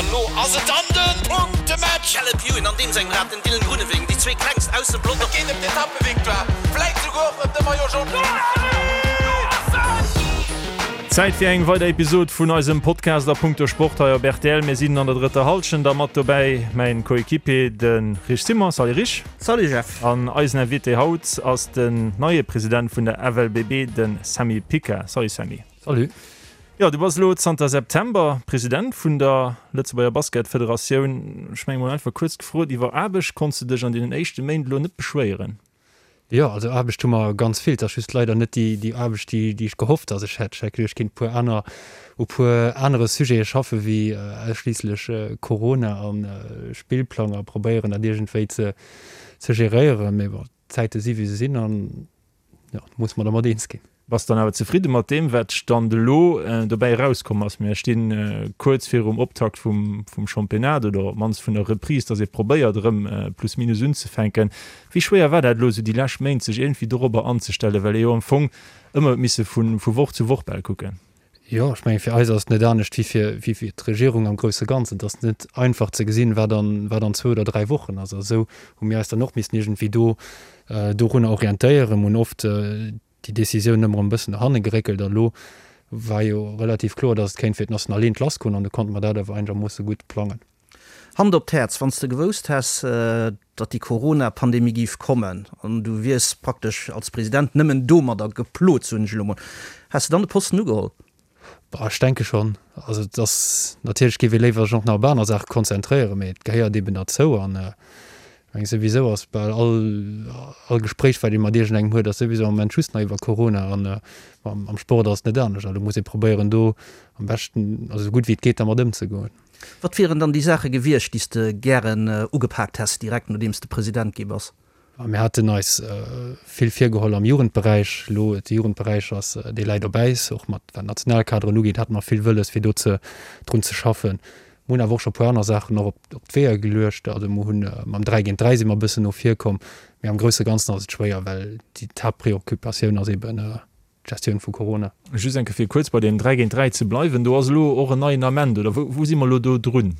An elo ass et dann de Punktematch! Caleb Ewan an deem sengem Rad, den Dylan Groenewegen, déi zwee klengst aus dem Pelotong. Et geet ëm d'Etappevictoire, vläit souguer och ëm de Maillot Jaune. Zäit fir eng weider Episod vun eisem Podcast a punkto Sport hei op rtl. Mir sinn an der drëtter Hallschent a mat dobäi mäin Coéquipier de Rich Simon. Salut Rich. Salut Jeff. An eisen Invité haut ass den neie President vun der FLBB, de Sammy Pica. Salut Sammy. Salut. Jo, du bass elo zanter September President vun der Lëtzebuerger Basketfederatioun. Ech menge mol einfach kuerz gefrot, iwwer Aarbecht konns de dech an deenen éischte Méint elo net beschwéieren? Jo, also Aarbecht hu mer ganz vill. Et ass just leider net déi déi Aarbecht, déi déi ech gehofft, dass ech hätt. Ech hätt geduecht, ech kéint e puer aner u puer anere Sujete schaffe wéi ausschliisslech Corona a Spillplang a probéieren dat iergendwéi ze ze geréieren. Mee bon, d'Zäite si wéi se sinn an jo, muss mer dermat eens ginn. Bass dann awer zefridde mat deem, wat Stand elo dobäi erauskomm ass? Mir sti kuerz virum Optakt vum Championnat oder op d'mannst vun der Reprise, dass ee probéiert erëm plus minus unzefänken. Wéi schwéier war dat elo esou déi lescht Méint, sech iergendwéi dorobber anzestellen, well ee jo am Fong ëmmer huet misse vu Woch zu Woch bal kucken? Jo, ech mengen, fir eis ass et net anescht wéi fir, wéi fir d'Regierung am grousse Ganzen. Et ass net einfach ze gesinn, wat an, wat an zwou oder dräi Wochen ass. A sou hu mir eis dann och missen iergendwéi do, dorunner orientéieren. Mir hunn oft déi Décisioun ëmmer erëm e bëssen no hanne geréckelt. A lo war jo relativ kloer, datt et kéint fir d'Nationaleent lassgoen an du konnte mer dat awer einegermoosse gutt plangen. Hand op d'Häerz, wann s de gewousst häss, datt déi Corona-Pandemie géif kommen an du wiers praktesch als President nëmmen domadder geplot, soen ech elo mol, häss de dann de Posten ugeholl? Bah, ech denke schonn. Also et ass natierlech géif ee léiwer sech och nach op aner Saache konzentréieren, mee et gehéiert eeben derzou an ech meng souwisou ass bal all all Gespréich wat ee mat iergendengem huet ass souwisou am Moment just nach iwwer Corona an am Sport ass et net anescht. Also muss ee probéieren do am beschten, also esou gutt wéi et geet dermat ëmzegoen. Wat wieren dann déi Saache gewiescht, déi s de gären ugepaakt häss, direkt nodeems de President gi bass? Mir haten eis vill virgeholl am Jugendberäich. Elo, de Jugendberäich ass, dee läit op Äis. Och mat wat d'Nationalkaderen ugeet, hate mer vill wëlles, fir do ze, drun ze schaffen. Mer hunn awer och scho e puer aner Saachen och op, op d'Weeër geluecht. Also mer hunn mam 3 géint 3 si mer e bëssen no vir komm. Mee am grousse Ganzen ass et schwéier, well déi d'Haaptpreoccupatioun ass eben, D'Gestioun vu Corona. Just eng Kéier fir kuerz bei deem 3 géint 3 ze bleiwen, do ass elo och en neien Ament, oder wou si mer elo do drun?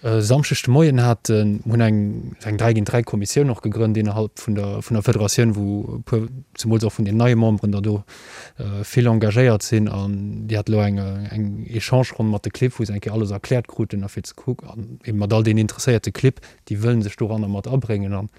E Samschdeg de Moien hat hunn eng eng 3 géint 3 Kommissioun och gegrënnt innerhalb vun der vun der Federatioun, wou e puer, zemools och vun den neie Memberen der do vill engagéiert sinn an déi hat elo eng eng Echange-Ronn mat de Clibb, wou se eng Kéier alles erkläert kruten a fir ze kucken an eben mat all deenen interesséierte Clibb, déi wëllen sech doranner mat abréngen an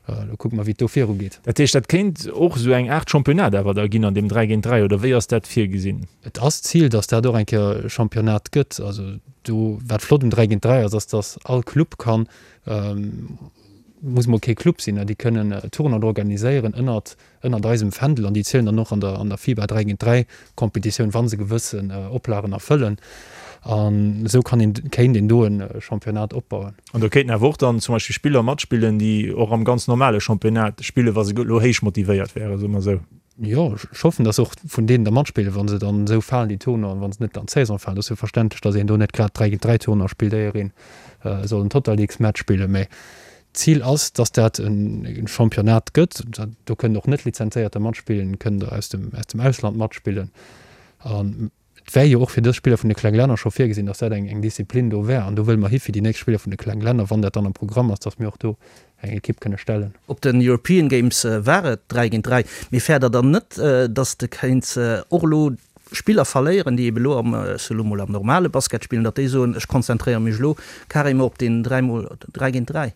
Lo kucke mer, wéi et do viru geet. Dat heescht, dat kéint och esou eng Aart Championnat awer da ginn an deem 3 géint 3, oder wéi ass dat virgesinn? Et ass d'Zil, datt dat och eng Kéier e Championnat gëtt. Also do, wat flott um 3 géint 3 ass, ass, datt all Club kann, muss mol kee Club sinn, déi kënnen Tournoien organiséieren ënnert ënnert eisem Fändel an déi zielen dann och an der an der FIBA 3 géint 3 Competitioun, wa se gewëssen Oplagen erfëllen. An esou kann een, kéint een do e Championnat opbauen. An do kéinten awer och dann zum Beispill Spiller matspillen, déi och am ganz normale Championnat spillen, wa se elo héich motivéiert wären, soe mer esou. Jo, ech hoffen, dass och vun deenen der matspillen, wa se dann esou falen, déi Tournoien, wa se net an d'Saison falen. Et ass jo verständlech, dass een do net grad 3 géint 3 Tournoi spillt, éier een soll en Totalleagues-Match spillen. Mä D'Zil ass, dass dat e Championnat gëtt. Do kënnen och Net-Lizenzéierter matspillen, kënnen der aus dem aus dem Ausland matspillen. An et wär jo och fir dës Spiller vun de kleng Länner scho virgesinn, dass dat eng eng Disziplin do wär. An do wëlle mer hi fir déi nächst Spiller vun de kleng Länner, wann dat dann am Programm ass, dass mir och do eng Ekipp kënne stellen. Op den European Games war et 3 géint 3. Mee fäert der dann net, dass de kéints och elo Spiller verléieren, déi ebe lo am, ech soe lo mol, am normale Basket spillen, datt déi soen, ech konzentréiere mech elo carrément op deen 3 mol 3 géint 3?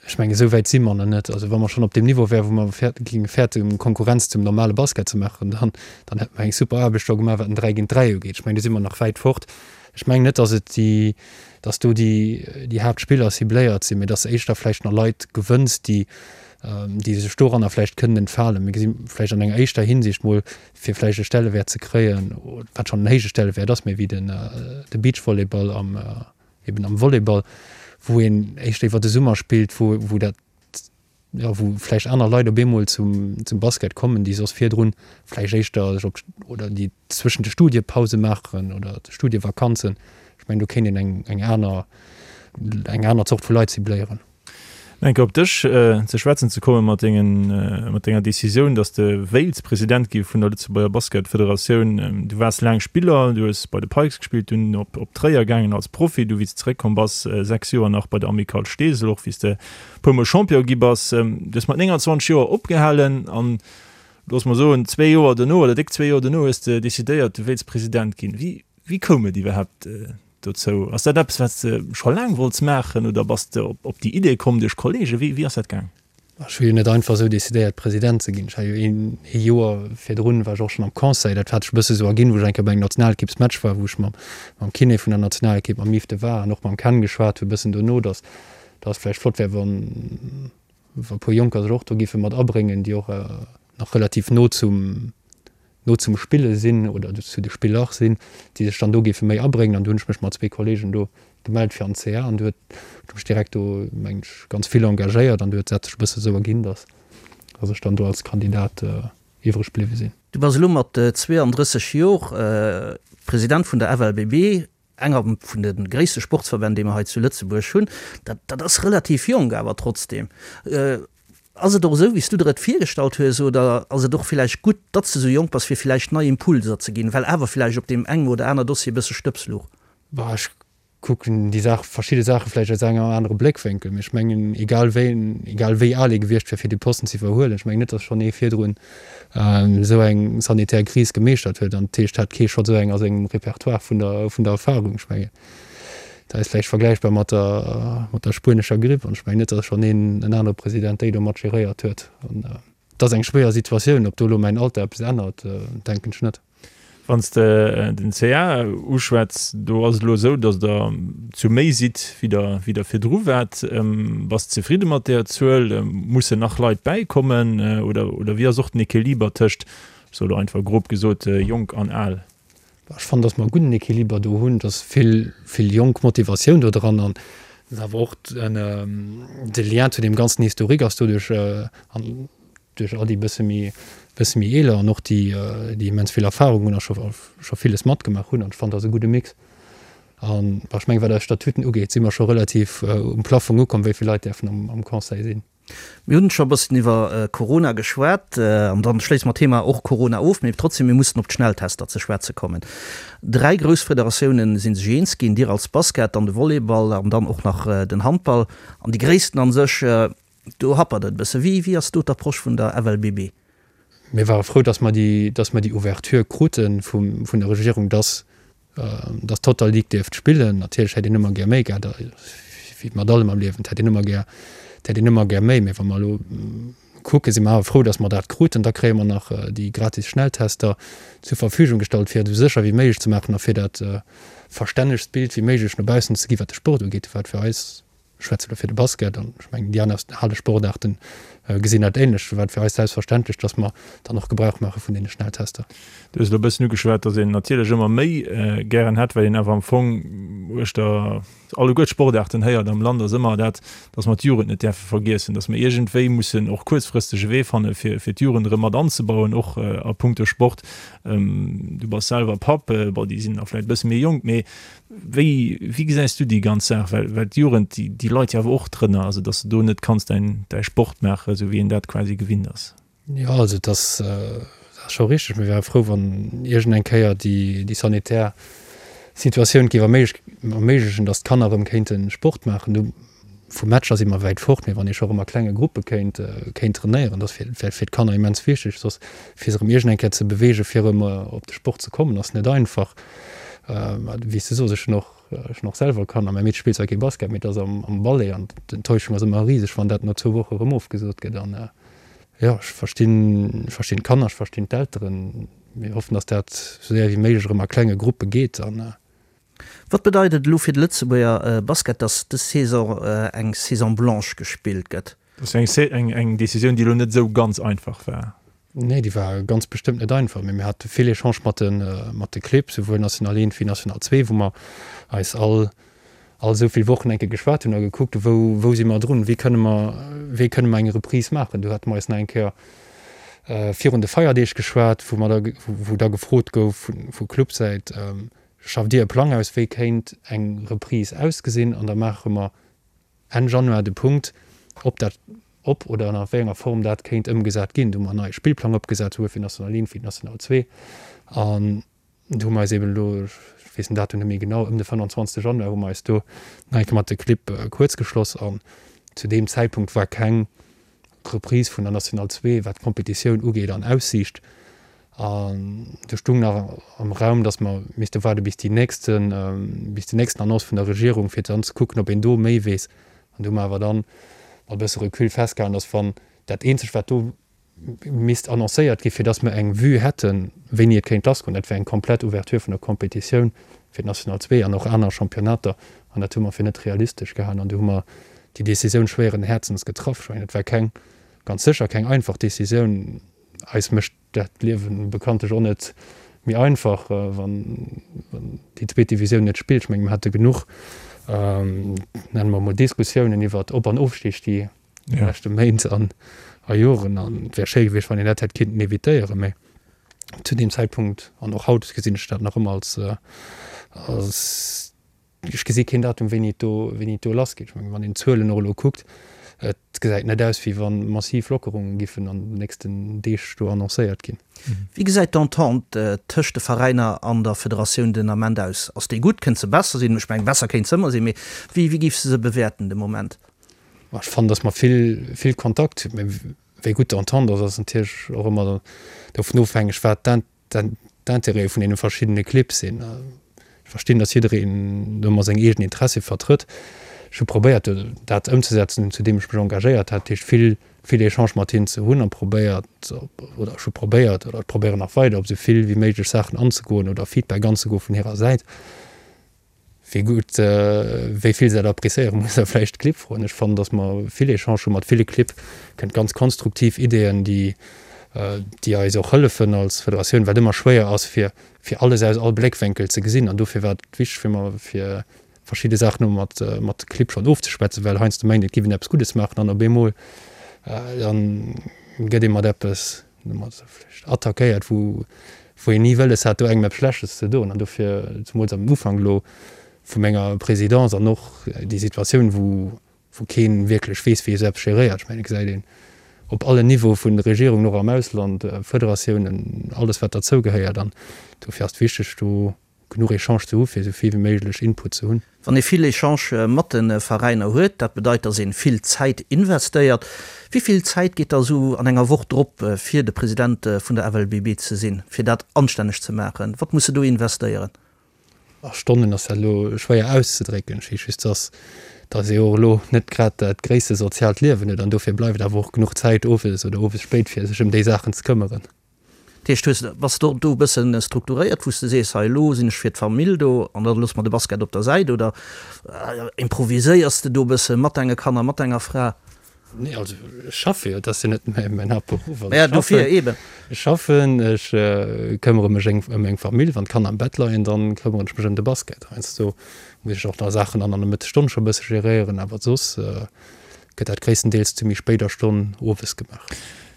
Ech mengen, esou wäit si mer nach net. Also wa mer schonn op deem Niveau wären, wou mer géinge fäerten, Konkurrenz zum normale Basket ze maachen, dann, dann hätte mer eng super Aarbecht do gemaach, wat den 3 géint 3 ugeet. Ech mengen, do si mer nach wäit fort. Ech mengen net, datt et déi, datt do déi, déi Haaptspiller cibléiert sinn, mä datt éischter vläicht nach Leit gewënns, déi, déi sech doranner vläicht kënnen entfalen. Mir gesi vläicht an enger éischter Hinsicht mol, fir vläicht e Stellewäert ze kréien, wat schonn en héije Stellewäert ass, méi wéi den de Beachvolleyball am eben am Volleyball, wou een éischter iwwer de Summer spillt, wou wou dat jo wou vläicht aner Leit op eemol zum zum Basket kommen, déi soss virdrun vläicht éischter sech op oder déi zwëschen de Studiepause maachen oder de Studievakanzen. Ech mengen do kéint een eng eng aner eng aner Zort vu Leit cibléieren. Eng Kéier op dech ze schwätzen ze kommen, mat dengen, mat denger Decisioun, datt s de wéilts President gi vun der Lëtzebuerger Basketfederatioun. Du waars laang Spiller, du hues bei de Pikes gespillt, dunn op op Tréier gaangen als Profi, du wéi s de zeréckkomm bass, 6 Joer nach bei der Amicale Steesel, och wéi s de e puermol Champion gi bass. Du hues mat 29 Joer opgehalen an, looss mer soen, zwee Joer dono oder déck zwee Joer dono hues de decidéiert, du wéilts President ginn. Wéi, wéi koum et iwwerhaapt dozou? Ass dat eppes, wat s de scho laang wollts maachen oder bass de op déi Idee komm duerch Kollegen? Wéi, wéi ass dat gaang? Ech hu jo net einfach esou decidéiert, President ze ginn. Ech war jo een, ee Joer virdrun war ech och schonn am Conseil. Dat hat sech e bësse sou erginn, wou ech eng Kéier bei engem Nationalekippsmatch war, wou ech mam, mam Kiné vun der Nationalekipp, mam Yves de Wahr an och mam Ken geschwat hu e bëssen dono, datt, datt et vläicht flott wär, wann, wa e puer Jonker sech och do géife mat abréngen, déi och nach relativ no zum, no zum Spille sinn oder zu de Spiller sinn, déi sech dann do géife méi abréngen. An du hunn ech mech mat zwee Kollegen do gemellt fir an d'CA an du huet ech mech direkt do, mengen ech, ganz vill engagéiert an du huet dat sech e bësse sou erginn, datt datt ech dann do als Kandidat iwwreg bliwwe sinn. Du bass elo mat 32 Jor President vun der FLBB, enger vun de gréisste Sportsverbänn, déi mer hei zu Lëtzebuerg hunn. Dat dat ass relativ jonk awer trotzdem. Ass et och esou, wéi s du der et virgestallt hues, oder ass et och villäicht gutt, datt s de esou jonk bass, fir villäicht nei Impulser ze ginn, well awer villäicht op deem engem oder aner Dossier e bësse Stëbs luch? Bah, ech kucken déi Saach, verschidde Saache vläicht aus engem anere Bléckwénkel, mee ech mengen, egal wéi, egal wéi al ee gewiescht wär, fir dee Posten ze iwwerhuelen, ech mengen net, datt schonn ee virdrun esou eng sanitär Kris gemeeschtert huet, an dat heescht, hat kee schonn esou eng a sengem Repertoire vun der, vun der Erfahrung. Ech mengen, Dat ass vläicht vergläichbar mat der, mat der spuenescher Gripp. An ech mengen net, datt schonn een, en anere President déi do mat geréiert huet. An et ass eng schwéier Situatioun. Ob do elo mäin Alter eppes ännert, denken ech net. Wann s de den CA uschwätz, do ass et elo esou, datt Der zu méi sidd, wéi der, wéi der virdru waart. Bass de zefridde mat där Zuel? Mussen nach Leit bäikommen oder, oder wéi ass och den Equiliber tëscht, ech soe elo einfach grob gesot, jonk an al? Ech fannen, dass mer e gudden Equiliber do hunn, dass vill, vill jonk Motivatioun do dran an dass awer och de Lien zu deem ganzen Historique ass doduerch an duerch all déi bësse méi, bësse méi eeler an och déi, déi immens vill Erfahrung hunn a scho, scho villes matgemaach hunn. An ech fannen, dat ass e gudde Mix. An ech mengen, wat eis Statuten ugeet, si mer scho relativ um Plaffong ukomm, wéi vill Leit däerfen am, am Conseil sinn. Mir hunn scho e bëssen iwwer Corona geschwat an dann schléisse mer d'Thema och Corona of, mee trotzdem, mir mussen op d'Schnelltester ze schwätze kommen. Dräi grouss Federatiounen si sech eens ginn, Dir als Basket, dann de Volleyball an dann och nach den Handball. An déi gréissten an sech, do happert et e bësse. Wéi wéi ass do d'Approche vun der FLBB? Mir ware frou, dass mer déi, dass mer déi Ouverture krute vum, vun der Regierung, dass Dass d'Total League dierft spillen. Natierlech hätt een ëmmer gär méi gehat, wéi mat allem am Liewen, et hätt een ëmmer gär, et hätt een ëmmer gär méi. Mee wa mer elo kucken, si mer awer frou, dass mer dat kruten. Da kréie mer nach déi gratis Schnelltester zur Verfügung gestallt, fir et esou sécher wéi méiglech ze maachen a fir dat verstännegst Bild wéi méiglech no baussen ze ginn, wat de Sport ugeet, wat fir eis Ech schwätze elo fir de Basket an ech mengen déi aner Halesportaarten gesinn dat ähnlech. Do war et fir eis selbstverständlech, dass mer dann och Gebrauch maache vun deene Schnelltester. Du hues elo e bëssen ugeschwat, dass een natierlech ëmmer méi gären hätt, well een awer am Fong uechter alleguer d'Sportaarten héiert am Land ass ëmmer dat, dass mer d'Jugend net däerfe vergiessen, dass mer iergendwéi mussen och kuerzfristeg e Wee fanne fir fir d'Jugend erëm mat anzebauen, och a punkto Sport. Du bass selwer Papp, bon déi sinn nach vläicht e bësse méi jonk, mee Wéi, wéi gesäis du déi ganz Saach? Well, well d'Jugend, déi, déi leit jo awer och drënner, also datt s de do net kanns däin, däi Sport maachen, esou wéi een dat quasi gewinnt ass. Jo, also et ass, et ass scho richteg. Mir wäre frou, wann iergend eng Kéier déi, déi sanitär Situatioun géif erméiglechen, datt d'Kanner erëm kéinte Sport maachen. Do vu Matcher si mer wäit fort, mee wann ee scho erëm a klenge Gruppe kéint, kéint trainéieren, dat wär fir d'Kanner immens wichteg. Soss fir se erëm iergend eng Kéier ze beweegen, fir erëm op de Sport ze kommen, ass net einfach. Wéi s de sos, ech hunn och, ech hunn och selwer Kanner. Mäi Meedche spillt zwar kee Basket, mee et ass am, am Ballet an d'Enttäuschung ass ëmmer riseg, wann dat no zwou Woche erëm ofgesot gëtt. An jo, ech verstinn, ech verstinn d'Kanner, ech verstinn d'Elteren. Mir hoffen, datt dat esou séier wéi méiglech erëm a klenge Gruppe geet an. Wat bedeit et elo fir de Lëtzebuerger Basket, datt dës Saison eng Saison blanche gespillt gëtt? Dat ass eng eng Decisioun, déi elo net esou ganz einfach war. Nee, déi war ganz bestëmmt net einfach, mee mir hate vill Echangë mat de mat de Clibb, souwuel National 1 wéi National 2, wou mer eis all all esou vill Wochen eng Kéier geschwat hunn a gekuckt hu wou wou si mer drun, wéi kënne mer wéi kënne mer eng Reprise maachen. Do hate mer eis nach eng Kéier virun de Feierdeeg geschwat, wou mer da wou da gefrot gouf vu Clubsäit, Schafft Dir e Plang aus, wéi kéint eng Reprise ausgesinn? An da maache mer Enn Januar de Punkt. ob dat, ob oder an a wéi enger Form dat kéint ëmgesat ginn. Do hu mer en neie Spillplang opgesat, souwuel fir National 1 wéi National 2. An do hu mer eis eben elo, ech weess den Datum net méi genau, ëm de 25 Januar hu mer eis do nach eng Kéier mat de Clibb kuerzgeschloss. An zu deem Zäitpunkt war keng Reprise vun der National 2, wat d'Kompetitioun ugeet, an Aussiicht. An do stung nach am Raum, datt mer misste waarde bis déi nächste, bis déi nächsten Annonce vun der Regierung, fir dann ze kucken, ob een do méi weess. An do hu mer awer dann mat e bësse Recul festgehalen, datt wann dat eenzegt, wat do misst annoncéiert ginn, fir datt mer eng Vue hätten, wéini et kéint lassgoen, dat wär eng komplett Ouverture vun der Kompetitioun fir d'National 2 an och aner Championnater. An dat hu mer fir net realistesch gehalen. An do hu mer déi Décisioun schwéieren Häerzens getraff. Ech mengen, et war keng, ganz sécher keng einfach Décisioun. Eis mécht dat d'Liewe bekanntlech och net méi einfach, wann déi zweet Divisioun net spillt. Ech mengen, mer hate genuch, nenne mer emol, Diskussiounen iwwert Op an Ofstig déi leschte Méint an a Joren. An et wär schéi gewiescht, wann een dat hätt kinnten evitéieren. Mä zu deem Zäitpunkt an och haut gesinn ech dat nach ëmmer als, als Ech gesi keen Datum, wéini et do, wéini et do lassgeet. Ech mengen, wann een d'Zuelen och elo kuckt, et gesäit net aus, wéi wa massiv Lockerunge giffen an den nächsten Deeg do annoncéiert ginn. Wéi gesäit d'Entente tëscht de Veräiner an der Federatioun den Ament aus? Ass déi gutt? Kënnt se besser sinn? Ech mengen, besser kéint se ëmmer sinn, mee wéi, wéi géifs de se bewäerten de Moment? Ech fannen, datt mer vill, vill Kontakt hunn. Mee wéi gutt d'Entente ass, ass natierlech och ëmmer dovun ofhängeg, wat d'Intérêtë vun deene verschiddene Clibb sinn. Ech verstinn, datt jiddereen do ëmmer seng eegen Interessie vertrëtt. Ech hu probéiert, dat ëmzesetzen, zu deem ech mech engagéiert hat, dat heescht vill, vill Echange mat hinnen ze hunn a probéiert, oder ech hu probéiert oder ech probéieren nach weider, op esou vill wéi méiglech Saachen anzegoen oder Feedback anzegoe vun hirer Säit. Wéi gutt, wéi vill se dat appréciéieren, muss der vläicht d'Clibb froen. Ech fannen, datt mer vill Echange hu mat ville Clibb, kënnt ganz konstruktiv Ideeën, déi, déi eis och hëllefen als Federatioun, wat ëmmer schwéier ass, fir, fir alles aus all Bléckwénkel ze gesinn. An dofir war et wichteg fir mer, fir verschidde Saachen elo mat, mat de Clibb schonn ofzeschwätzen, well heiansdo mengt een, et giff een eppes Guddes maachen an op eemol dann gëtt ee mat eppes, attackéiert, wou wou een ni wëlles hat, do engem eppes Schlechtes ze doen. An dofir, zemools am Ufank elo vu menger Présidence an och déi Situatioun, wou wou kee wierklech weess, wéi ee sou eppes geréiert. Ech mengen, et gesäit een op allen Niveaue vun de Regierungen, och am Ausland, Federatiounen, alles wat derzou gehéiert. An dofir ass et wichteg, do genuch Echange ze hu fir esou vill wéi méiglech Input ze hunn. Wann ee vill Echange mat de Veräiner huet, dat bedeit, datt ee vill Zäit investéiert. Wéi vill Zäit geet da esou an enger Woch drop, fir de President vun der FLBB ze sinn, fir dat anstänneg ze maachen? Wat muss e do investéieren? A Stonnen ass dat elo schwéier auszedrécken. Ech weess just, datt datt ee och elo net grad dat gréisste soziaalt Liewen huet an dofir bleift awer och genuch Zäit owes oder owes spéit fir sech ëm déi Saachen ze këmmeren. Dat heescht, hues, bass de do e bëssen strukturéiert, wou s de sees, hei elo sinn ech fir d'Famill do an da loosse mer de Basket op der Säit oder improviséiers de do e bësse mat denge Kanner, mat denger Fra? Nee, also ech schaffe jo, et ass jo net mäin Haaptberuff. Also ech dofir schaffen, ech schaffen, ech këmmere mech eng ëm meng Famill, wann d'Kanner am Bett leien, dann këmmeren ech mech ëm de Basket. Heiansdo muss ech och nach Saachen an an der Mëttesstonn scho e bësse geréieren, awer soss gëtt dat gréisstendeels zu méi spéider Stonn owes gemaach.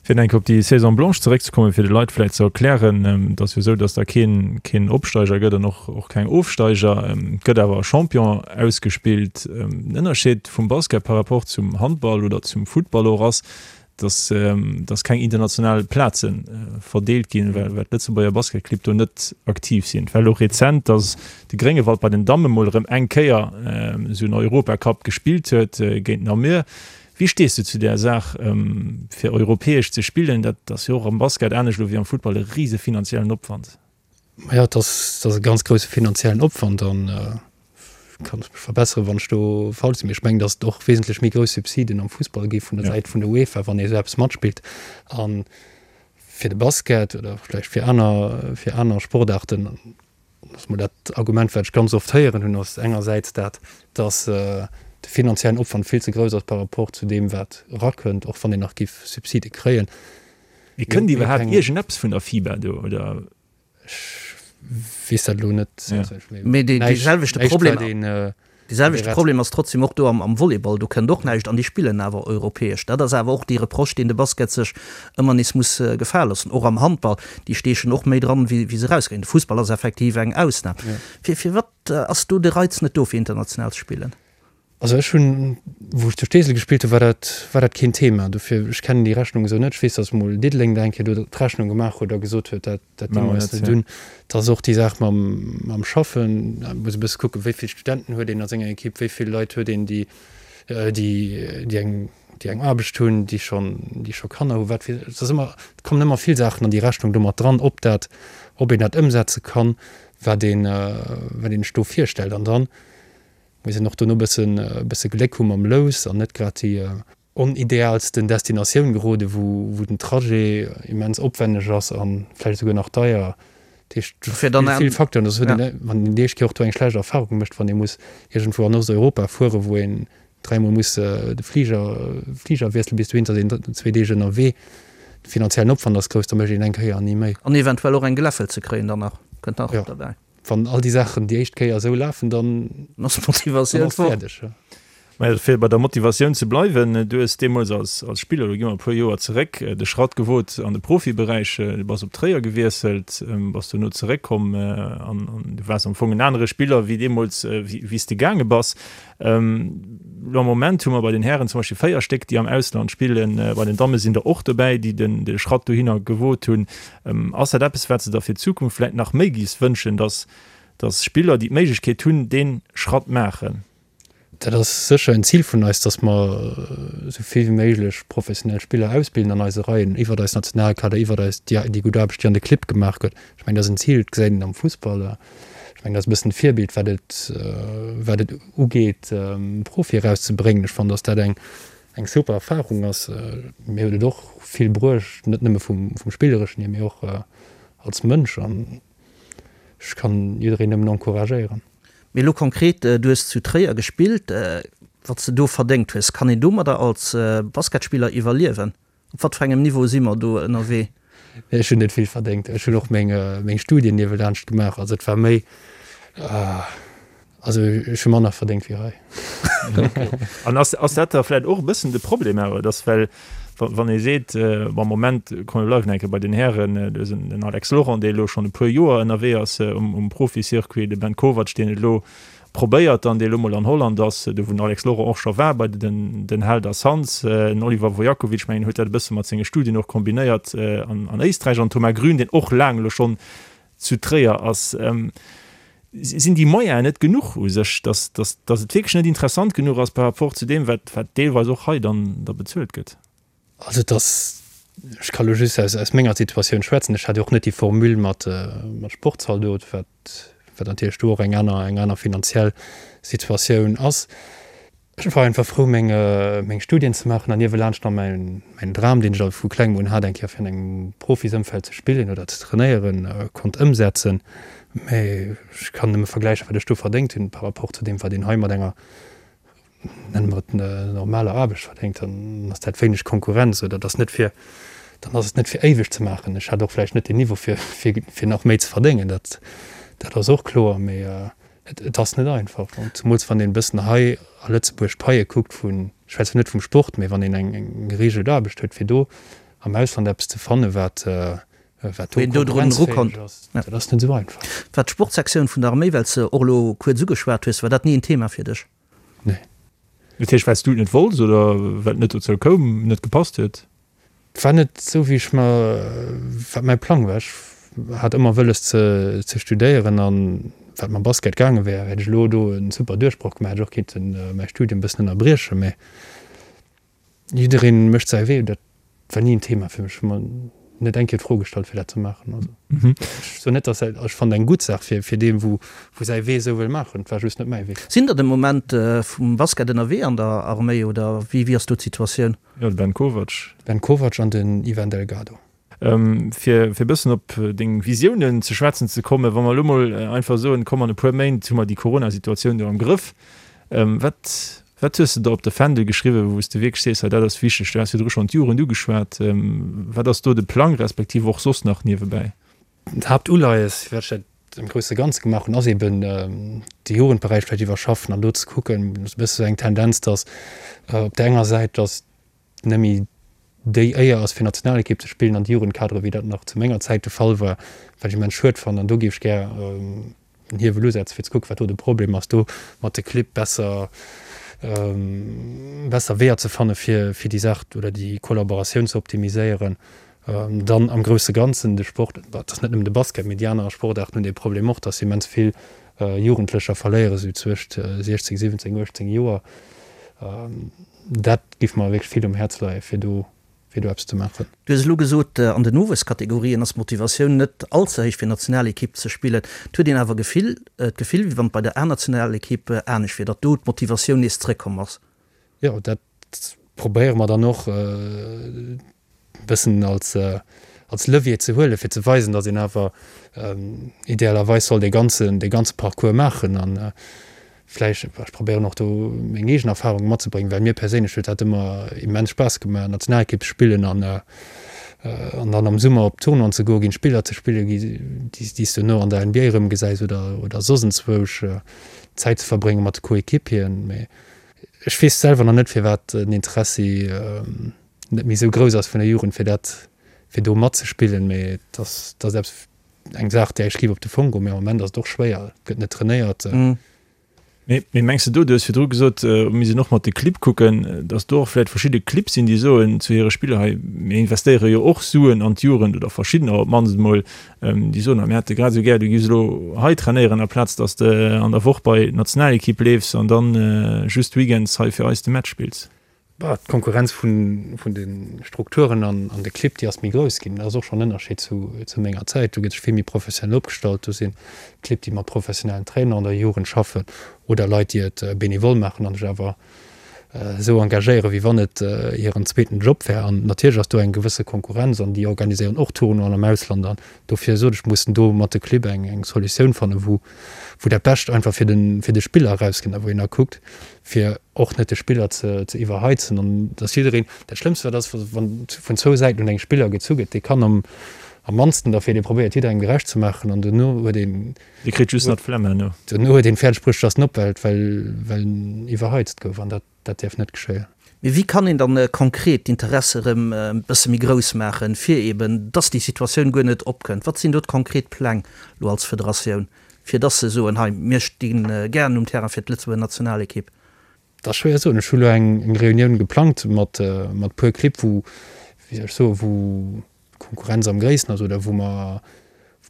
Fir nach eng Kéier op déi Saison blanche zeréckzekommen, fir de Leit vläicht ze erklären, Et ass jo esou, datt da keen, keen Opsteiger gëtt an och, och keng Ofsteiger. Et gëtt awer e Champion ausgespillt. Den Ënnerscheed vum Basket par rapport zum Handball oder zum Futtball och ass, dass, dass keng international Plaze verdeelt ginn, well, well d'Lëtzebuerger Basketclibb do net aktiv sinn. Et war elo rezent, dass de Gréngewald bei den Damme mol erëm eng Kéier esou en Europacup gespillt huet géint Namur. Wéi stees du zu där Saach, fir europäesch ze spillen? Dat ass jo och am Basket anescht elo wéi am Futtball e rise finanziellen Opwand. Majo, et ass, et ass e ganz grousse finanziellen Opwand an ech kann mech verbesseren, wann ech do falsch sinn, mee ech mengen, datt et och wesentlech méi grouss Subsiden am Fussball gi vun der Säit vun der UEFA, wann ee esou eppes matspillt. A fir de Basket oder vläicht fir aner, fir aner Sportaarten, ass mol dat Argument, wat ech ganz oft héieren hunn, ass engersäits dat, datt de finanziellen Opwand vill ze grouss ass par rapport zu deem, wat erakënnt, och wann een nach giff Subside kréien. Mee kënnt iwwerhaapt iergendeppes vun der FIBA do, oder? Ech weess dat elo net. Mee dee selwechte Problem, dee selwechte Problem ass trotzdem och do am Volleyball. Do kënnt och näischt an déi spillen awer europäesch. Dat ass awer och dee Reproche, deen de Basket sech ëmmer nees muss gefale loossen. Och am Handball, déi steechen och méi dran, wéi se erauskréien. De Fussball ass effektiv eng Ausnam. Firwat ass do de Reiz net do, fir international ze spillen? Also ech hunn, wou ech zu Steesel gespillt hunn, war dat, war dat keen Thema. Dofir, ech kennen déi Rechnung esou net. Ech weess, datt mol Diddeleng da eng Kéier do d'Rechnung gemaach huet a gesot huet, dat, dat di mer eis net un. Et ass och déi Saach mam, mam Schaffen. Da muss e bësse kucken, wéi vill Studenten huet een a senger Ekipp, wéi vill Leit huet een, déi, déi, déi eng, déi eng Aarbecht hunn, déi schonn, déi scho Kanner hunn, wat fir, et ass ëmmer, et kommen ëmmer vill Saachen an déi Rechnung do mat dran, ob dat, ob een dat ëmsetze kann, wat een, wat een sech do virstellt. An dann Muss een och dono bëssen bësse Gléck hu mam Lous an net grad déi onidealsten Destinatioun gerode wou wou den Trajet immens opwenneg ass an vläicht esouguer nach deier. Dat heescht do spille vill Facteuren. Dat huet een wann een déi éischt Kéier och do eng schlecht Erfahrung mécht, wann ee muss iergendwou an Osteuropa fuere wou een dräimol muss de Fliger Fliger wiessele bis dohin, da sinn een zwee Deeg ënnerwee. De finanziellen Opwand ass grouss, da mécht een eng Kéier an ni méi. An eventuell och eng Geläffel ze kréien dann nach, kënnt nach derbäi. Wann all déi Saachen déi éischt Kéier esou lafen, dann ass d'Motivatioun fäerdeg. Mä fir bei der Motivatioun ze bleiwen, du hues deemools als Spiller, elo gi mer e puer Joer zeréck, de Schratt gewot an de Profiberäich. Du bass op Tréier gewiesselt, bass dono zeréckkomm an du waars am Fong en anere Spiller wéi deemools, wéi s de gaange bass. Elo am Moment hu mer bei den Hären zum Beispill 4 Stéck, déi am Ausland spillen. Bei den Damme sinn der och dobäi, déi de Schratt dohinner gewot hunn. Ass dat eppes, wat s de der fir d'Zukunft vläicht nach méi giffs wënschen, dass, dass Spiller, déi d'Méiglechkeet hunn, dee Schratt maachen? Dat ass sécher en Zil vun eis, dass mer esou vill wéi méiglech professionell Spiller ausbilden an eise Reien, iwwert eis Nationalkader, iwwert eis, déi gutt Aarbecht, déi an de Clibb gemaach gëtt. Ech mengen, dat ass en Zil, dat gesäit een am Fussball. Ech mengen, dat ass e bëssen d'Virbild, wat et, wat et ugeet, Profie erauszebréngen. Ech fannen, dass dat eng, eng super Erfahrung ass. Mir huet et och vill bruecht, net nëmme vum, vum Spillereschen hier, mee och als Mënsch. An ech kann jiddereen nëmmen encouragéieren. Mee elo konkret, du hues zu Tréier gespillt. Wat s de do verdéngt hues, kann een domadder als Basketspiller iwwerliewen? Op wat fir engem Niveau si mer do ënnerwee? Ech hunn net vill verdéngt. Ech hunn och meng, meng Studien niewelaanscht gemaach. Also et war méi, also ech hu manner verdéngt wéi hei. An ass, ass dat da vläicht och e bëssen de Problem awer, dass well wann ee seet, bon am Moment, komm mir bleiwen eng Kéier bei den Hären, do ass en Alex Laurent, dee elo schonn e puer Joer ënnerwee ass um, um Profi-Circuit, de Ben Kovac, deen et elo probéiert dann, dee elo mol an Holland ass, do wou den Alex Laurent och scho war bei den, den Helder Suns, den Oliver Vojakovic, mengen huet dat e bësse mat senge Studien och kombinéiert an, an Éisträich, an Thomas Grün, deen och laang elo schonn zu Tréier ass. Sinn déi Moyenen net genuch u sech, dass, dass, dass et wierklech net interessant genuch ass par rapport zu deem, wat, wat deelweis och hei dann da bezuelt gëtt? Also et ass, ech ka lo just aus, aus menger Situatioun schwätzen, ech hat jo och net déi Formule mat, mat Sportzaldot, wat, wat natierlech do och eng aner, eng aner finanziell Situatioun ass. Ech war einfach frou meng, meng Studien ze maachen an niewelaanscht nach mäin, mäin Dram, deen ech al vu klengem un hat, eng Kéier fir an engem Profisëmfeld ze spillen oder ze trainéieren, konnt ëmsetzen. Mä ech kann nëmme vergläichen, wat ech do verdéngt hunn par rapport zu deem, wat een hei mat enger, nenne mer et, normaler Aarbecht verdéngt. Dann ass dat wéineg Konkurrenz oder et ass net fir, dann ass et net fir éiweg ze maachen. Ech hat och vläicht net den Niveau fir, fir, fir nach méi ze verdéngen, dat, dat ass och kloer. Mä Et ass net einfach, zemools wann een e bëssen hei a Lëtzebuerg d'Paie kuckt vun, ech schwätzen net vum Sport, mee wann een eng gereegelt Aarbecht huet, fir do am Ausland eppes ze fannen, wat do konkurrenzfäeg ass, dat ass net esou einfach. War d'Sportsektioun vun der Arméi, well s de och elo kuerz ugeschwat hues, war dat ni en Thema fir dech? Nee. Dat heescht, well s du et net wollts oder well et net dozou koum, net gepasst huet? Et war net esou wéi ech mer, wat mäi Plang war. Ech hat ëmmer wëlles ze ze studéieren an wat mam Basket gaange wär, hätt ech elo do en super Duerchbroch gemaach, hätt ech och kinnten mäi Studium e bëssen ënnerbriechen. Mä jiddereen mécht säi Wee. Dat war ni en Thema fir mech. Ech hu mer net eng Kéier d'Fro gestallt fir dat ze maachen. Also ech soen net, dass dat, ech fannen eng gutt Saach fir fir dee wou wou säi Wee esou wëll maachen. Et war just net mäi Wee. Sinn der de Moment vum Basket ënnerwee an der Arméi oder wéi wéi ass do d'Situatioun? Jo, de Ben Kovac. Ben Kovac an den Ivan Delgado. Fir e bëssen op deng Visiounen ze schwätzen ze kommen, wa mer elo mol einfach soen, komm an e puer Méint hu mer déi Corona-Situatioun do am Grëff, wat, wat hues de der op de Fändel geschriwwen, wou s de wierklech sees, hei dat ass wichteg? Du has virdru schonn d'Jugend ugeschwat. Wat ass do de Plang, respektiv och soss nach niewebäi? D'Haaptuleies, firwat ech dat am grousse Ganze gemaach hunn, ass eben de Jugendberäich vläicht iwwerschaffen an do ze kucken, e bësse sou eng Tendenz, datt op där enger Säit, datt net méi déi Éier ass fir Nationalekipp ze spillen an de Jugendkadere wéi dat nach zu menger Zäit de Fall war, wat ech immens schued fannen an do géif ech gär en Hiewel usetzen, fir ze kucken, wat do de Problem ass, do mat de Clibb besser. Besser Weeër ze fanne fir fir déi Saach oder déi Kollaboratioun ze optimiséieren. Dann am grousse Ganzen de Sport, et ass net nëmmen de Basket, mee déi aner Sportaarten hunn dee Problem och, datt se immens vill Jugendlecher verléiere sou zwëscht 16, 17, 18 Joer. Dat géif mer wierklech vill um Häerz leie fir do fir do eppes ze maachen. Du hues elo gesot, an den Nowuesskategorien ass d'Motivatioun net all ze héich fir Nationalekipp ze spillen. Et huet een awer Gefill, d'Gefill, wéi wann et bei der A-Nationalekipp anescht wier, datt do d'Motivatioun nees zréckkomm ass. Jo, dat probéiere mer dann och e bëssen als, als Levier ze huelen, fir ze weisen, datt een awer idealerweis soll dee ganzen, dee ganze Parcours maachen an Vläicht, ech probéieren och do meng eegen Erfahrungen matzebréngen, well mir perséinlech huet dat ëmmer immens Spaass gemaach, Nationalekipp ze spillen an an dann am Summer op Tournoien ze goen, géint Spiller ze spillen, déi s du duerno an der NBA erëmgesäis oder oder soss enzwousch Zäit ze verbrénge mat de Coéquipieren. Mee ech weess selwer nach net, firwat den Interessi net méi esou grouss ass vun der Jugend, fir dat, fir do matzespillen. Mee et ass, et ass eppes, Eng Saach, där ech géif op de Fong goen, mee am Moment ass et och schwéier, et gëtt net trainéiert. Mee mengs de do, du hues virdru gesot, mir sinn och mat de Clibb kucken, datt do och vläicht verschidde Clibb sinn, déi soen zu hire Spiller, hei mir investéiere jo och Suen an d'Jugend oder verschiddener op d'mannst emol, déi soen, mir hätte grad esou gär, du giffs elo hei trainéieren, aplaz datt s de an der Woch bei d'Nationalekipp leefs an dann just weekends hei fir eis de Match spills. D'Konkurrenz vun de Strukturen an de Clibb, déi ass méi grouss ginn. Dat ass och schonn en Ënnerscheed zu menger Zäit. Do gëtt sech vill méi professionell opgestallt. Do si Clibb, déi mat professionellen Trainer an der Jugend schaffen oder Leit, déi et benevole maachen an sech awer esou engagéieren, wéi wann et hiren zweeten Job wär. An natierlech ass do eng gewësse Konkurrenz an déi organiséieren och Tournoien am Ausland. An dofir sot ech, mussen do mat de Clibb eng Solutioun fannen, wou dat Bescht einfach fir de Spiller erauskënnt a wou een da kuckt, fir och net de Spiller ze iwwerheizen an dass jiddereen, dat Schlëmmst wat ass, wann vun zwou Säiten un engem Spiller gezu gëtt, dee kann am am mannsten derfir, dee probéiert jidderengem gerecht ze maachen an duerno huet een, Dee kritt just nach d'Flemm herno. Duerno huet een fäerdeg bruecht, dass en opwellt, well well en iwwerheizt gouf an dat dat däerf net geschéien. Mee wéi kann een dann konkret d'Interesse erëm e bësse méi grouss maachen, fir eben dass déi Situatioun guer net opkënnt? Wat sinn do d'konkret Pläng elo als Federatioun? Fir dass se soen, hei, mir sti gären um Terrain fir d'Lëtzebuerger Nationalekipp. Dat ass schwéier ze soen. Ech hu lo eng Reunioun geplangt mat mat puer Clibb, wou, wéi soll ech soen, wou d'Konkurrenz am gréissten ass oder wou mer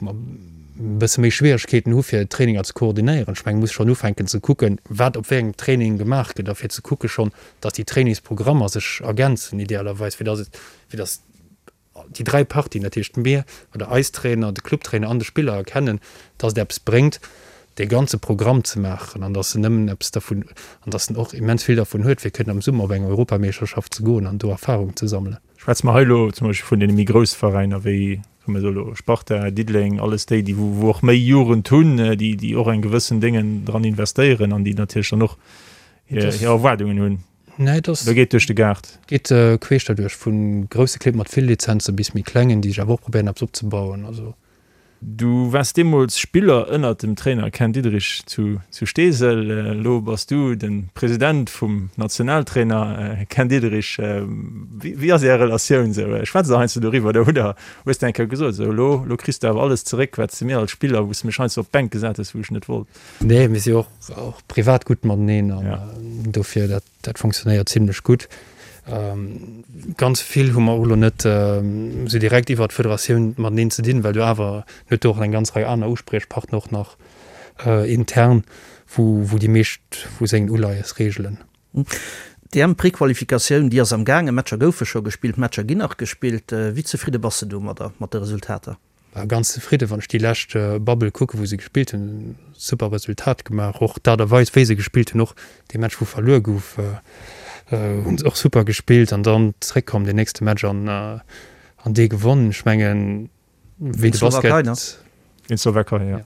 wou mer e bësse méi Schwieregkeeten hu fir Traininger ze koordinéieren. Ech mengen, muss schonn ufänken ze kucken, wat op wéi engem Training gemaach gëtt a fir ze kucke schonn, dass déi Trainingsprogrammer sech ergänzen idealerweis, fir dass et fir dass déi 3 Partien, dat heescht mir oder eis Trainer, de Clubtrainer an de Spiller erkennen, dass et eppes bréngt, dee ganze Programm ze maachen an dass en nëmmen eppes dervun, an dass en och immens vill dervun huet, fir kënnen am Summer op eng Europameeschterschaft ze goen an do Erfahrung ze sammelen. Schwätze mer hei elo zum Beispill vun deene méi grousse Veräiner wéi, soe mer elo Sparta, Diddeleng, alles déi, déi wou och méi Jugend hunn, déi déi och eng gewëssen Déngen dran investéieren an déi natierlech dann och hir Erwaardungen hunn. Nee, et ass. Oder geet duerch de Gaart? Geet queesch derduerch, vu grousse Clibb mat vill Lizenze bis méi klengen, déi sech awer och probéieren eppes opzebauen. Also. Du waars deemools Spiller ënnert dem Trainer Ken Diederich zu Steesel. Elo bass du de President vum Nationaltrainer Ken Diederich. Wéi ass Är Relatioun esou? Schwätzt der heiansdo doriwwer oder hutt der, hues de eng Kéier gesot, esou elo, elo kriss de awer alles zeréck, wat s de mir als Spiller, wou s de mech heiansdo op d'Bänk gesat hues, wou ech net wollt? Nee, mir si och och privat gutt mateneen an dofir dat dat funktionéiert zimlech gutt. Ganz vill hu mer och elo net esou direkt iwwert d'Federatioun mateneen ze dinn, well do awer huet do och eng ganz Rei aner Uspriechpartner och nach intern, wou wou déi meescht vu sengen Uleies reegelen. D'EM-Prequalifikatioun, déi ass am gaangen, Matcher goufe scho gespillt, Matcher ginn nach gespillt. Wéi zefridde bass de domadder, mat de Resultater? War ganz zefridden, wann ech déi lescht Bubble kucken, wou se gespillt hunn. Super Resultat gemaach, och d'Aart a Weis wéi se gespillt hunn, och dee Match wou verluer gouf, hunn se och super gespillt an dann zréckkomm deen nächste Match an an dee gewonnen. Ech mengen wéi de Basket, Géint d'Slowakei, jo.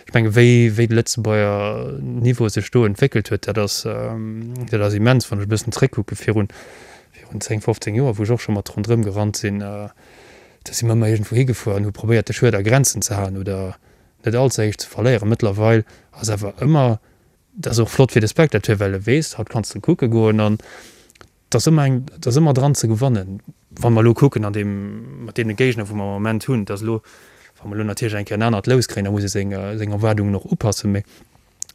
Ech menge wéi wéi de Lëtzebuerger Niveau sech do entwéckelt huet, dat ass dat ass immens. Wann ech e bëssen zréckkucke virun virun 10, 15 Joer, wou ech och scho mat ronderëm gerannt sinn, Da si mer ëmmer iergendwou higefuer an hu probéiert, de Schued a Grenzen ze halen oder net all ze héich ze verléieren. Mëttlerweil ass awer ëmmer, dat ass och flott fir de Spectateur, well e weess, haut kanns de kucke goen an et ass ëmmer eng, et ass ëmmer dran ze gewannen. Wa mer elo kucken an deem, mat deene Géigner, wou mer am Moment hunn, et ass elo, wa mer elo natierlech eng Kéier en anert Lous kréien, da muss ee seng, seng Erwaardungen och upassen, mee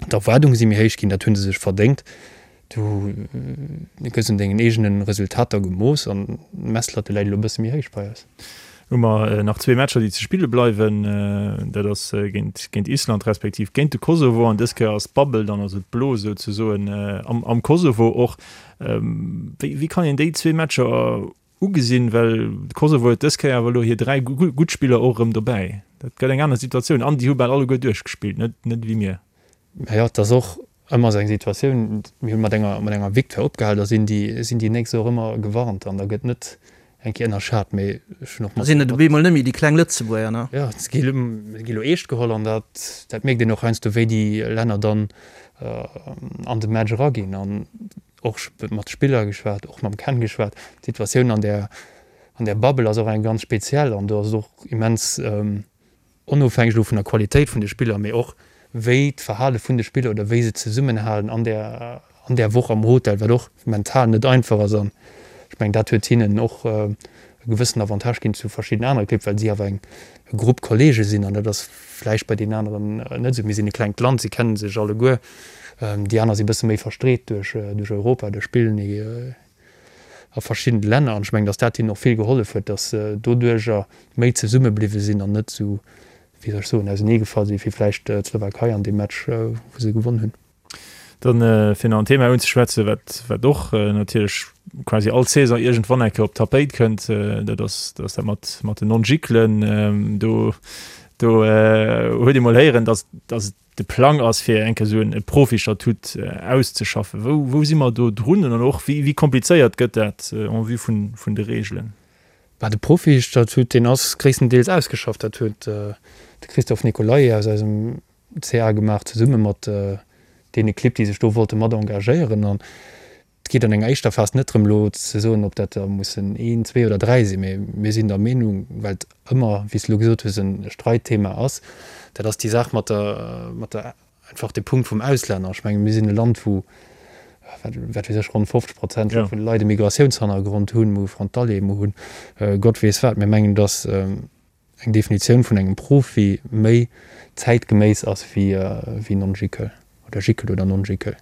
d'Erwaardunge si méi héich ginn, dat hu se sech verdéngt. Du gëss un dengen eegene Resultater gemooss an d'Messlatte läit elo e bësse méi héich bei eis. Hu mer nach zwee Matcher, déi ze spille bleiwen. Dat ass géint géint Island respektiv géint de Kosovo. An dës Kéier ass d'Bubble dann, also d'Blos souzesoen, am am Kosovo och. Wéi wéi kann een déi zwee Matcher ugesinn? Well de Kosovo huet dës Kéier awer elo hir 3 gutt Spiller och erëm dobäi. Dat gëtt eng aner Situatioun an déi hu bal alleguer duerchgespillt, net net ewéi mir. Mä jo, et ass och ëmmer esou eng Situatioun, mir hu mat enger, mat enger Victoire opgehal, da sinn déi, sinn déi Nächst och ëmmer gewarnt an da gëtt net eng Kéier ënnerschat. Mee ech hunn och mat. Da sinn et op eemol net méi déi kleng Lëtzebuerger, ne? Jo, se gi elo eescht geholl an dat, dat mierkt een och heiansdo, wéi déi Länner dann an de Match eraginn. An och mat Spiller geschwat, och mam Ken geschwat. D'Situatioun an där, an där Bubble ass och eng ganz speziell an do ass et och immens, onofhängeg elo vun der Qualitéit vun de Spiller, mee och wéi d'Verhale vun de Spiller oder wéi se zesummenhalen an där an där Woch am Hotel, wat och mental net einfach ass. An ech mengen, dat huet hinnen och e gewëssen Avantage ginn zu verschidden anere Clibb, well si awer eng e Grupp Kollege sinn an dat ass vläicht bei deenen aneren net esou. Mir sinn e klengt Land, si kenne sech alleguer, déi aner si e bësse méi verstreet duerch duerch Europa, do spillen a verschiddene Länner an ech mengen, datt dat hinnen och vill gehollef huet, datt se doduerjer méi zesumme bliwwe sinn an net esou, wéi soll ech soen, auseneegefall sinn, wéi vläicht d'Slowakei an deem Match, wou se gewonn hunn. Dann, fir nach en Thema unzeschwätzen, wat, wat och natierlech quasi all Saison iergendwann eng Kéier op d'Tapéit kënnt, dat ass, dat ass dat mat, mat den Non-Giclen. Do, do huet ee mol héieren, datt, datt et de Plang ass, fir eng Kéier esou e Profistatut auszeschaffen. Wou, wou si mer do drun an och wéi, wéi komplizéiert gëtt dat en vue vun, vun de Regeln? Bah, de Profistatut, deen ass gréisstendeels ausgeschafft. Dat huet de Christophe Nicolay aus eisem CA gemaach, zesumme mat deene Clibb, déi sech do wollte mat engagéieren. An Et geet an enger éischter Phas net drëm, elo ze soen, ob dat der mussen een, zwee oder dräi sinn, mee mir sinn der Meenung, well et ëmmer, wéi s de elo gesot hues, e Streitthema ass, dat ass déi Saach mat der, mat der, einfach de Punkt vum Auslänner. Ech menge mir sinn e Land, wou, wat, wat weess ech, ronn 50 Prozent vun de Leit e Migratiounshannergrond hunn, mir hu Frontalier, mir hunn Gott weess wat. Mir mengen, datt eng Definitioun vun engem Profi méi zäitgeméiss ass wéi Non-Gickel oder Gickel oder Non-Gickel.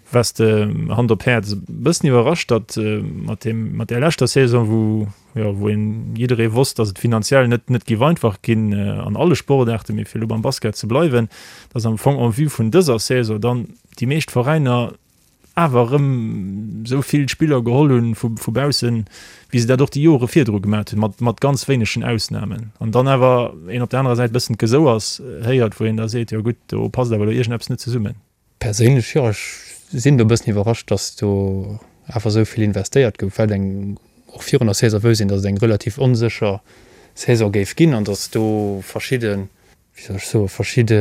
Waars de, Hand op Häerz, e bëssen iwwerrascht, datt mat deem, mat där leschter Saison, wou, jo, wou een, jidderee wosst, datt et finanziell net, net géif einfach ginn an alle Sportaarten, mee fir elo beim Basket ze bleiwen, datt am Fong en vue vun dëser Saison dann déi meescht Veräiner awer erëm esou vill Spiller geholl hunn vu vu baussen, wéi se dat och déi Jore virdru gemat hunn, mat mat ganz wéinegen Ausnamen. An dann awer een op der anerer Säit e bëssen d'Gesouers héiert, wou een da seet, jo gutt, do passt awer elo iergendeppes net zesummen. Perséinlech, jo, ech sinn do e bëssen iwwerrascht, datt do awer esou vill investéiert gouf, well eng och virun der Saison wousst een, datt et eng relativ onsécher Saison géif ginn an datt do verschidde wéi soll ech soen, verschidde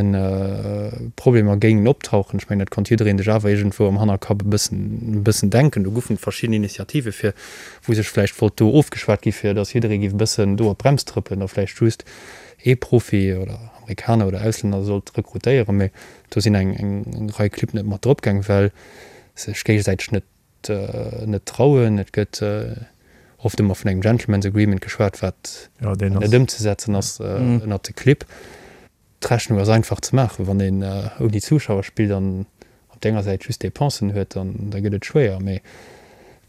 Problemer géingen optauchen. Ech mengen, dat konnt jiddereen sech awer iergendwou am Hannerkapp e bëssen, e bëssen denken. Do goufen verschidden Initiative fir, wou sech vläicht wollt do ofgeschwat gi fir datt jidderee géif e bëssen do op d'Brems trëppelen a vläicht just ee Profi oder Amerikaner oder Auslänner sollt rekrutéieren. Mee do sinn eng, eng Rei Clibb net mat drop gaang, well se sech géigesäiteg net net trauen. Et gëtt oft ëmmer vun engem Gentleman's Agreement geschwat, wat net ëmzesetzen ass ënnert de Clibb. D'Rechnung ass einfach ze maachen, wann een ouni Zuschauer spillt an op der enger Säit just Dépensen huet, dann da gëtt et schwéier. Mee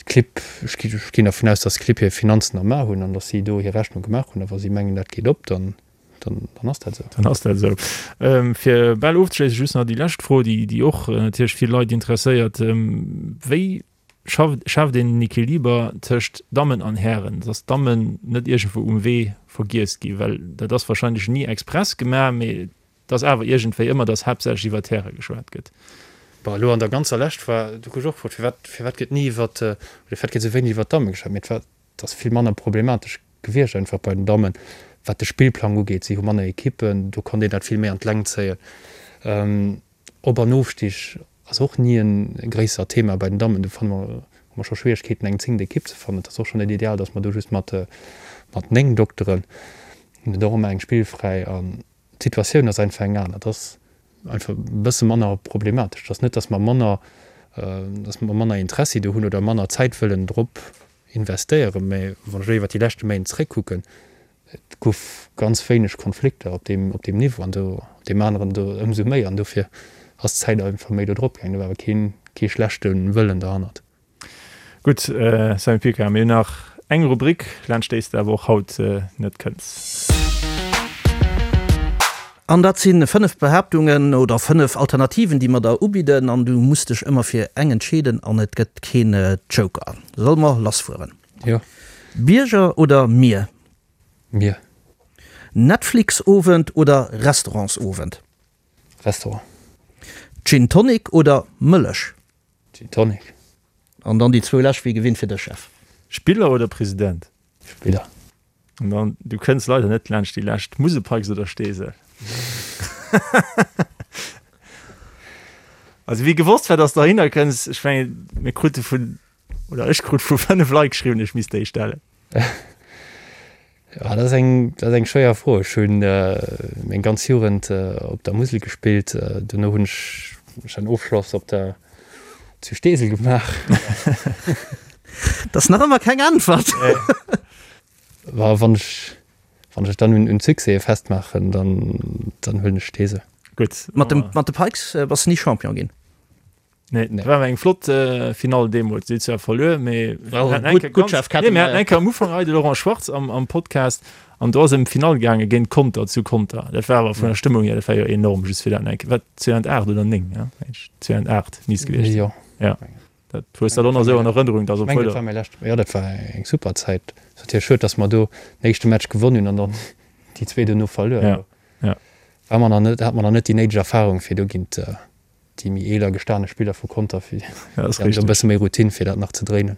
d'Clibb, ech ginn dervun aus, datt d'Clibb hir Finanzen am A hunn an datt si do hir Rechnung gemaach hunn. A wa si mengen, dat geet op, dann Dann, dann ass dat esou. Dann ass dat esou. Fir bal ofzeschléissen, just nach déi lescht Fro, déi, déi och natierlech vill Leit interesséiert. Wéi schafft, schaaft een den Equiliber tëscht Dammen an Hären, dass d'Dammen net iergendwou um Wee vergiess ginn? Well dat ass wahrscheinlech ni express gemaach, mee et ass awer iergendwéi ëmmer, dass haaptsächlech iwwer d'Häre geschwat gëtt. Bon, elo an der ganzer Lescht war, du gouf och gefrot, firwat, firwat gëtt ni iwwer, oder firwat gëtt esou wéineg iwwer d'Damme geschwat? Mee et war, Et ass vill manner problematesch gewiescht einfach bei den Dammen, wat de Spillplang ugeet. Si hu manner Ekippen, do konnt een dat vill méi an d'Längt zéien. Op an Ofstig ass och ni e gréissert Thema bei den Dammen. Do fanne mer, hu mer scho Schwieregkeeten eng zéngt Ekipp ze fannen. Et ass och scho net ideal, datt mer do just mat mat 9 Dokteren hunn et och ëmmer eng spillfräi. An d'Situatioun ass einfach eng aner. Et ass einfach e bësse manner problematesch. Et ass net, datt mer manner, datt mer manner Interessi do hunn oder manner Zäit wëllen drop investéieren, mä wann ech elo iwwert déi leschte Méint zréckkucken, et gouf ganz wéineg Konflikter op deem, op deem Niveau an do op deem aneren do ëmsou méi an dofir ass d'Zäit einfach méi do drop gaangen. Do war awer keen, kee schlechte Wëllen derhannert. Gutt, Sammy Picard, mir hunn nach eng Rubrik, laanscht déi s de awer och haut net kënns. An dat si 5 Behaaptungen oder 5 Alternativen, déi mer der ubidden an du muss dech ëmmer fir eng entscheeden an et gëtt keen Joker. Solle mer lassfueren? Jo. Bierger oder Mier? Mier. Netflix-Owend oder Restaurantsowend? Restaurant. Gin Tonic oder Mëllech? Gin Tonic. An dann déi zwou lescht, wéi gewinnt fir dech, Jeff. Spiller oder President? Spiller. An dann, du kënns leider net laanscht déi lescht, Muselpikes oder Steesel? Also wie gewosst war, dass du dohinner kënns, ech mengen, mir krute vun, oder ech krut vu 5 Leit geschriwwen, ech misst déi stellen. Ja, dat ass eng, dat ass eng schwéier Fro. Ech hunn meng ganz Jugend op der Musel gespillt. Dono hunn ech ech en Ofschloss op der zu Steesel gemaach. Dat ass nach ëmmer keng Äntwert. Wa wann ech wann ech dann un un d'Succèse festmaachen, dann dann huelen ech Steesel. Gutt. Mat dem mat de Pikes bass de ni Champion ginn? Nee, nee. War eng flott äh, Finale deemools. Si zwar verluer, mee mir haten eng Kéier am Ufank hei de Laurent Schwartz am, am Podcast an do ass ëm d'Finall gaange géint Conter zu Conter. Dat war awer vun der Stëmmung hier, dat war jo enorm, just fir dat eng Kéier, wat 2008 oder 9, ja? 2008 misst gewiescht sinn. Jo. Ja. Dat hues dat och nach esou an Erënnerung, dass obwuel. Dat war mäi lescht, jo, dat war eng super Zäit. Ass natierlech schued, dass mer do den éischte Match gewonn hunn an dann déi zwee dono verluer. Ja, ja. War mer nach net, hat mer nach net déi néideg Erfarung fir do géint déi méi eeler gestane Spiller vu Conter, fir Ja, ass déi e bësse méi Routine, fir dat nach ze dréinen.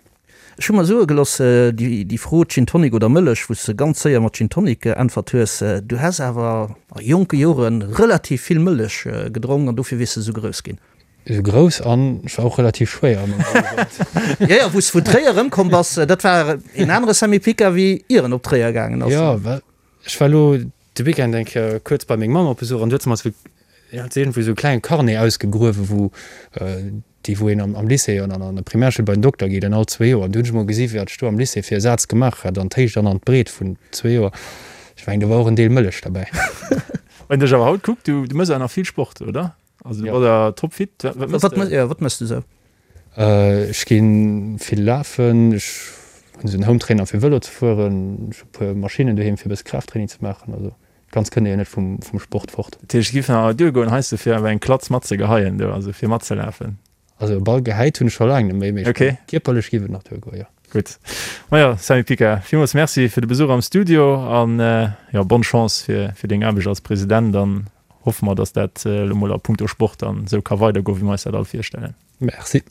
Ech hu mer soe geloss, déi Fro Gin Tonic oder Mëllech, wou s de ganz séier mat Gin Tonic geäntwert hues, du häss awer a jonke Jore relativ vill Mëllech gedronk an dofir wiers de esou grouss ginn. Esou grouss an ech war och relativ schwéier an menger Jugend. Jo, jo, wou s de vun Tréier erëmkomm bass, dat war een anere Sammy Pica wéi ier en op Tréier gaangen ass. Jo, well ech war elo de Weekend eng Kéier kuerz bei meng Mamm op Besuch an du huet se mer esou, hat se iergendwou esou e klenge Carnet ausgegruewen, wou déi wou een am Lycée an an der Primärschoul bei den Dokter geet an all zwee Joer. An du hunn ech emol gesi wat ech do am Lycée fir e Saz gemaach hat an d'Héicht an an d'Breet vun zwee Joer. Ech mengen do war och en Deel Mëllech derbäi. Wann een dech awer haut kuckt, du du mëss awer nach vill Sport, oder? Also du bass awer topfit. Wat mëss de? Jo, wat mëss de sou? Ech gi vill lafen, ech hunn esou en Hometrainer fir Vëlo ze fueren, ech hu e puer Maschinnen doheem fir e bësse Kraafttraining ze maachen. Also ganz kënnt ee jo net vum Sport fort. Dat heescht, et giff nach duergoen heiansdo fir awer eng Klatz matzegeheien do, also fir matzelafen? Also e Ball gehäit hunn ech scho laang net méi, mee kierperlech giff et nach duergoen, jo. Gutt. Majo, Sammy Pica, villmools Merci fir de Besuch am Studio an jo, bonne Chance fir deng Aarbecht als President an hoffe mer, dass dat elo mol a punkto Sport dann esou ka weidergoen, wéi mer eis dat all virstellen. Merci.